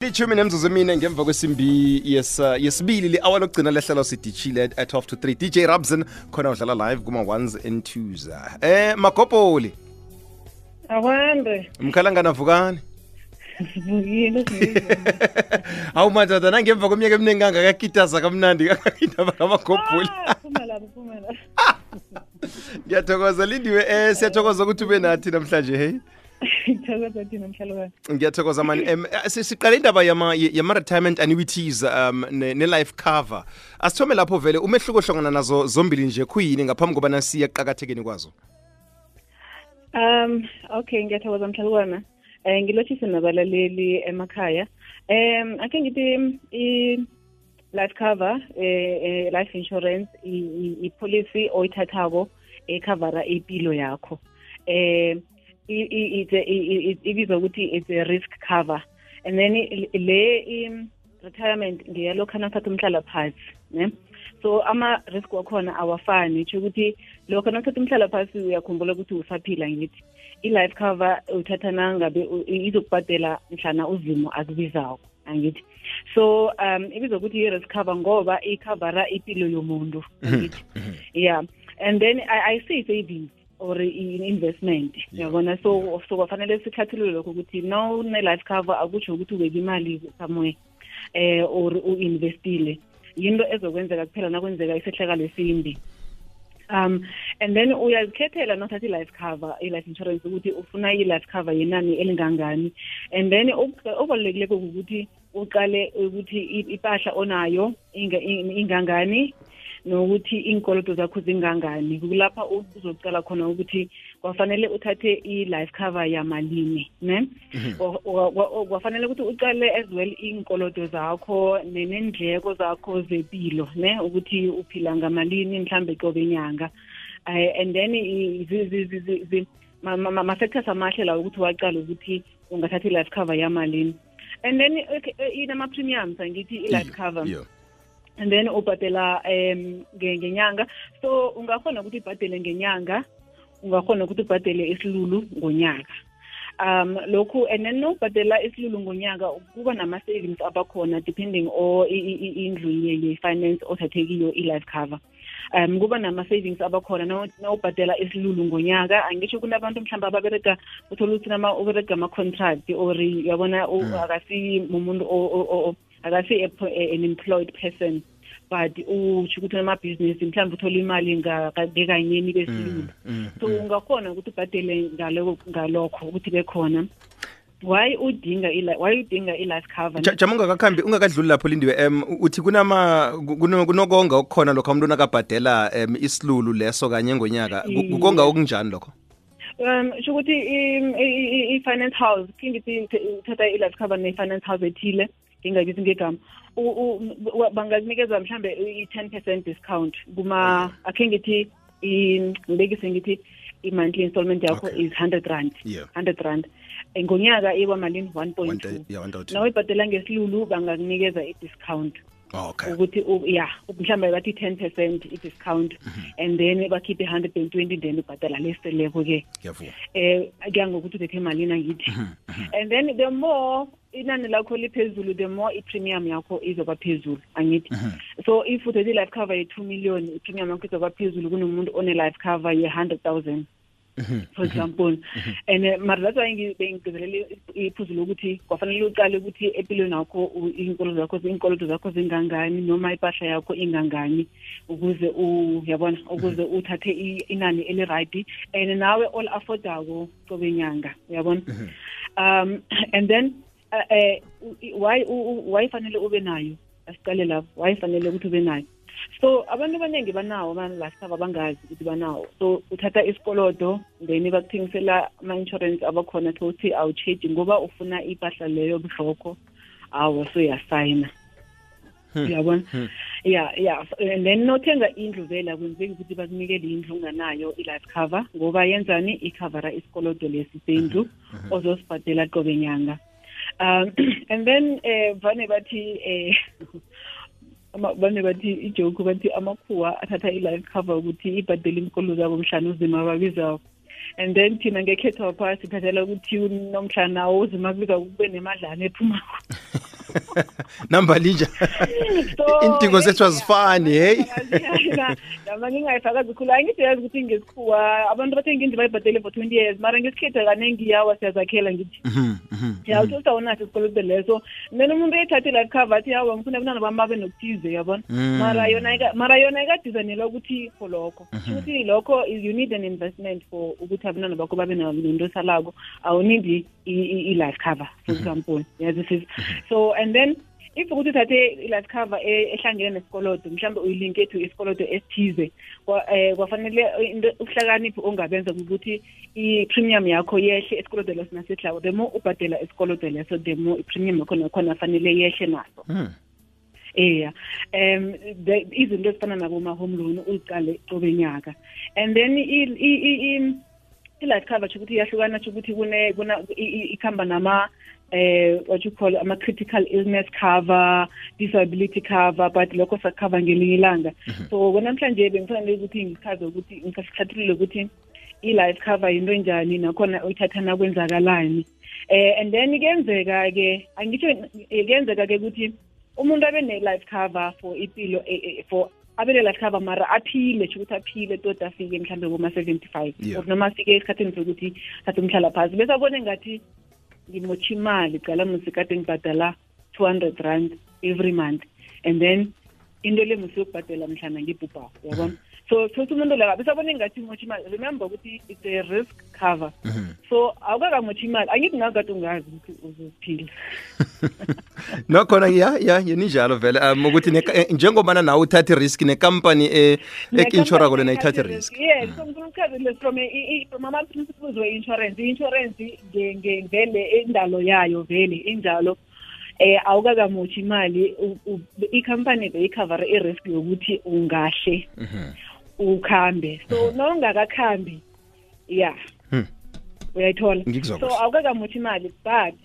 Lichumi nemzuzu emine ngemva kwesimbi yesibili li-hour lokugcina lehlelo sidishile at 12 to 3. DJ Rabson khona udlala live kuma ones and twos. Magopoli. Awande. Mkhalangana vukani. Vukile. Awu manje nangemva kweminyaka eminingi kangakakitaza kamnandi kangakindaba kamagopoli. Phumela. Ngiyathokoza Lindiwe siyathokoza ukuthi ube nathi namhlanje hey. Ngithokoza thina mhlalokwane. Ngiyathokoza mani siqale indaba yama retirement annuities ne life cover. Asithome lapho vele umehluko hlongana nazo zombili nje kuyini ngaphambi kobana siye eqhakathekeni kwazo. Okay ngiyathokoza mhlalokwane. Ngilothise nabalaleli emakhaya. Ake ngithi I life cover life insurance I policy oyithathako ecover impilo yakho. Ibizwa ukuthi it's a risk cover, and then le retirement ngiyalokho nathatha umhlala phansi ne. So ama risk wakhona awafani nje ukuthi lokho nathatha umhlala phansi uyakhumbula ukuthi usaphila ngithi I life cover uthatha nangabe izokubhadela mhlana uzimo akubizayo angithi. So ibizwa ukuthi I risk cover ngoba icover impilo yomuntu angithi. Yeah, and then I say savings or in investment yabona so kufanele sikhathulule lokho ukuthi no ne life cover akusho ukuthi ubeke imali somewhere or uinvestile yinto ezokwenzeka kuphela nakwenzeka isehlakalo esimbi. And then uyazikhethela nothatha life cover life insurance ukuthi ufuna life cover yenani elingangani, and then okubalulekile ukuthi uqale ukuthi ipahla onayo ingangani nokuthi inkoloto zakho zingangani. Kulapha uzocala khona ukuthi kwafanele uthathe I-life cover yamalini ne. Kwafanele ukuthi uqale as well inkoloto zakho nenendleko zakho zempilo ne ukuthi uphila ngamalini mhlambe qobe nyanga. And then ma-factors amahle la ukuthi waqala ukuthi ungathatha I-life cover yamalini. And then inama premiums angithi I-life cover. And then ubhadela ngenyanga, so ungakhona ukuthi ubhadele ngenyanga, ungakhona ukuthi ubhadele isilulu ngonyaka. Lokhu and then ubhadela isilulu ngonyaka kuba nama savings abakhona depending on indlu ye-finance othathekiyo I-life cover. Kuba nama savings abakhona na ubhadela isilulu ngonyaka. Angisho kunabantu mhlamba ababereka uthola ukuthi ubereka ama contract or yabona akasi umuntu akasi an employed person, but uchukutha ama business mhlawumbe uthola imali ngakanyeni besilulu. So ungakhona ukuthi ubhadele ngalokho ukuthi bekhona. Why udinga I-life cover? Jamunga kakhambi ungakadluli lapho Lindiwe uthi kunokonga okukhona lokho umuntu nakabhadela isilulu leso kanye ngonyaka kukonga okunjani lokho? Ukuthi I-finance house kingithi uthatha I-life cover ne-finance house ethile ngingabizi ngegama bangazinikeza mhlambe i-10% discount kuma ake ngithi ngibekise ngithi i-monthly installment yakho is 100 rand. 100 rand ngonyaka iba malini 1.2. Nawe ibhadela ngesilulu bangakunikeza i-discount. Okay. Ukuthi mhlambe bathi 10% i-discount and then bakhiphe 120 then ubhadala leseleko ke. Kuya ngokuthi uthethe malini angithi. And then the more inani lakho liphezulu the more i-premium yakho izoba phezulu angithi. So if uthethe life cover ye 2 million i-premium yakho izoba phezulu kunomuntu one life cover ye 100,000 for example. And that's why ngibengikezelele iphuzulu ukuthi kwafanele uqale ukuthi empilweni yakho inkoloto zakho zingangani noma ipahla yakho ingangani ukuze uyabona ukuze uthathe inani eli right and nawe all affordable qobe nyanga uyabona. And then why fanele ube nayo asiqale lapho why fanele ukuthi ube nayo. So abantu abaningi banawo ama-life cover bangazi ukuthi banawo, so uthatha isikolodo then bakuthengisela ama-insurance abakhona ukuthi awucheji ngoba ufuna ipahla leyo buhloko awu so uyasayina uyabona. And then nothenga indlu vela kwenzeki ukuthi bakunikele indlu unganayo I-life cover ngoba yenzani ikhavara isikolodo lesi sendlu ozosibhadela qobe nyanga. And then vane bathi ijoke bathi amakhuwa athatha I-life cover ukuthi ibhadele inkolo zabo mhlana uzima babizayo. And then thina ngekhetho phasi sithathela ukuthi nomhlana uzima kubiza kube nemadlana ephumako. Number linja. Intingo zethu azifani, hey. Nama ngingayifaka kakhulu angiyazi ukuthi ngesikhuwa abantu bathenga indlu bayibhadele for 20 years mara ngesikhethe kanengi yawa siyazakhela ngithi. Uthola unathi isikoloto leso. Mina umuntu ethathe life cover athi yawa ngifuna abantwana bami babe nokuthize yabona. Mara yona ikadizanela ukuthi for lokho. Futhi lokho you need an investment for ukuthi abantwana bakho babe nento salako. Awunidi i-life cover for example. Yeah, this is so and then if ukuthi uthathe i-life cover ehlangene nesikoloto mhlawumbe uyilinke to isikoloto esithize kwafanele ukuhlakaniphi ongabenza ukuthi i-premium yakho yehle esikoloto leso nasehlawo the more ubhadela isikoloto leso the more i-premium yakho nakhona fanele yehle naso izinto ezifana naboma-home loan uyiqale qobe nyaka and then i-life cover ukuthi iyahlukana ukuthi ikhamba nama what you call ama critical illness cover, disability cover, but lokho sakhava ngelinye ilanga. So namhlanje bengifanele ukuthi ngichaze ukuthi ngikasihlathulule ukuthi i-life cover into enjani nakhona uyithathana kwenzakalani. And then kuyenzeka ke ukuthi umuntu abe ne-life cover for impilo for abele life cover mara aphile ukuthi aphile tot afike mhlambe ngoma 75 or noma afike esikhathini sokuthi thatha umhlala phansi bese abone ngathi ngimotsha imali qala musikade ngibhadala 200 rand every month and then into le musiyokubhadela mhlana ngibhubha yabona so umuntu la bese abone ngathi ngimotsha imali remember ukuthi it's a risk cover so awukakamotshi imali angithi ngakade ungazi ukuthi uzophila nokhona yeninjalo vele ukuthi njengobana nawe uthatha risk necompany ekinshora kole nayithatha risk yes so ngikuchazile from ama principles we insurance ngevele indalo yayo vele injalo awukakamotshi imali i-company beyicover i-risk yokuthi ungahle ukhambe so nongakakhambi uyayithola so awukakamotshi imali but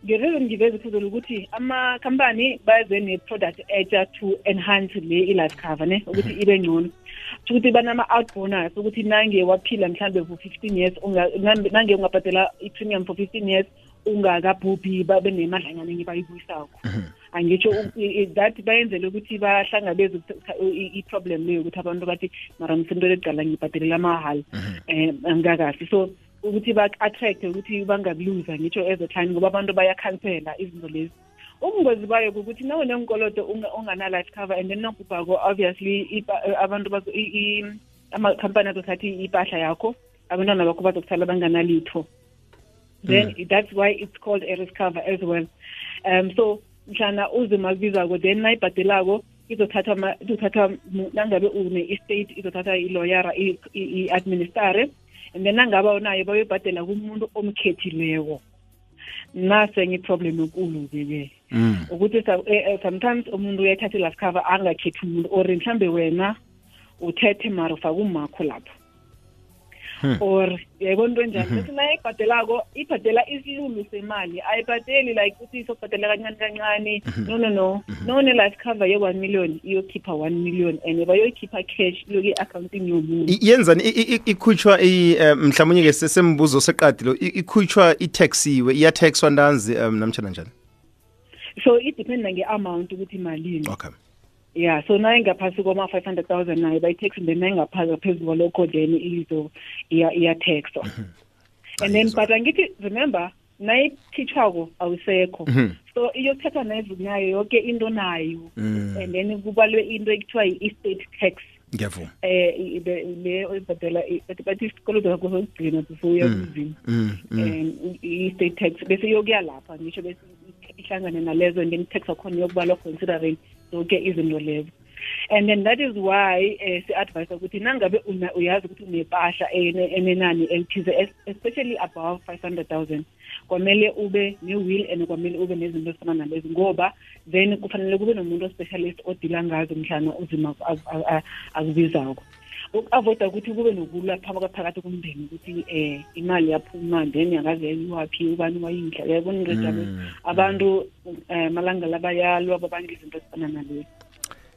ngereason ngiveza phezulu ukuthi ama-company baze ne-product etsha to enhance le i-life cover ne ukuthi ibe ngcono ukuthi banama-out bonus ukuthi nange waphila mhlawumbe for 15 years nange ungabhadela i-premium for 15 years ungakabhubhi babe nemadlanyana ngibayibuyisako angitsho that bayenzele ukuthi bahlangabeze i-problem leyo ukuthi abantu bathi mara msento leqala ngibhadelela mahali angikakahle so ukuthi ba-attract ukuthi bangabuluza ngitsho as a time ngoba abantu bayakhansela izinto lezi ubungozi bayo ukuthi nawe nenkoloto ungana-life cover and then nokubhako obviously abantu ama-company azothatha ipahla yakho abantwana bakho bazokuthala banganalitho then that's why it's called a risk cover as well so mhlana uzima kubizako then nayibhadelako izothatha nangabe une-estate izothatha i-lawyera i-administrare and then nangabe unayo bayobhadela kumuntu omkhethileko nase ngiproblem enkulu-ke ukuthi sometimes umuntu uyathatha i-life cover angakhethi umuntu or mhlambe wena uthethe mara ufake umakho lapho or yayibona into enjani bese naye ibhadela isilulu semali ayibhadeli like ukuthi izobhadela kancane kancane no ne-life cover ye-1 million iyokhipha 1 million and bayoyikhipha cash iyoke i-accounting yomuntu yenzani ikhutshwa mhlawumnye-ke sesembuzo seqadilo ikhutshwa itaxiwe iyathexwa ntanzi namtshana njani so idependa nge-amount ukuthi malini okay so naye ngaphasi kwama-500,000 naye bayi-tax then naye ngaphezulu kwalokho then iya-taxwa and then but angithi remember nayikhitshwako awusekho so iyothathwa nayo yonke into nayo and then kubalwe into ekuthiwa i-estate tax ngiyavuma le oyibhadela bathi isikoloto sakho sokugcina before uya kuzini i-estate tax bese iyokuya lapha ngisho bese ihlangane nalezo and then i-tax wakhona iyokubalwa considering zonke izinto lezo and then that is why si-advise ukuthi nangabe uyazi ukuthi unepahla enenani elithize especially above 500,000 kwamele ube ne-will and kwamele ube nezinto ezifana nalezi ngoba then kufanele kube nomuntu o-specialist odila ngazo mhlana uzima akubizako uku-avoida ukuthi kube nokulwa phakathi komndeni ukuthi imali yaphuma then yakaze yayiwaphi ubani wayindla yabona into njalo abantu malanga labayalwa babanga izinto ezifana nalezo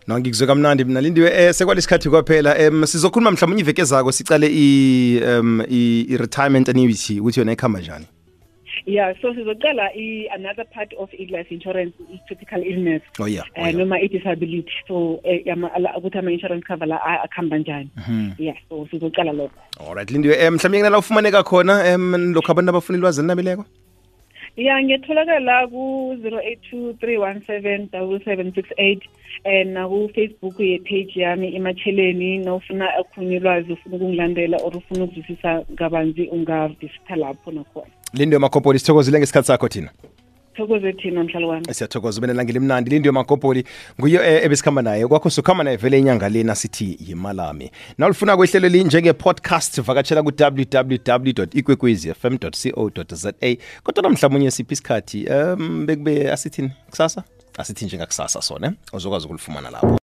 no ngikuzwe kamnandi mina Lindiwe sekwalesikhathi kwaphela sizokhuluma mhlawumbe iveke ezako sicale i-retirement annuity ukuthi yona ikhamba njani Yeah, so sizoqala another part of life insurance is critical illness. Noma disability. So ukuthi ama-insurance cover la akhamba njani. Yeah, so sizoqala lokho. Alright, Lindiwe, mhlawumbe ngala ufumaneka khona lokho abantu abafuna ilwazi elinabileko? Yeah, ngiyatholakala ku 0823177768 na ku Facebook page yami Imatsheleni. Nawufuna akhona ilwazi ufuna ukungilandela or ufuna ukuzwisisa kabanzi ungavisitha lapho nakhona. Lindiwe Makopoli, sithokozile ngesikhathi sakho thina. Thokoze thina mhlalo wami. Siyathokoza ubene langile mnandi. Lindiwe Makopoli nguye ebesikhamba naye. Kwakho sukhamba naye vele inyanga lena sithi yimalami. Nawulifuna kwehlelo linjenge podcast vakatshela ku www.ikwekwezfm.co.za. Kodwa namhlanje siphi isikhathi bekube asithini kusasa? Asithi njengakusasa sona uzokwazi ukulifumana lapho.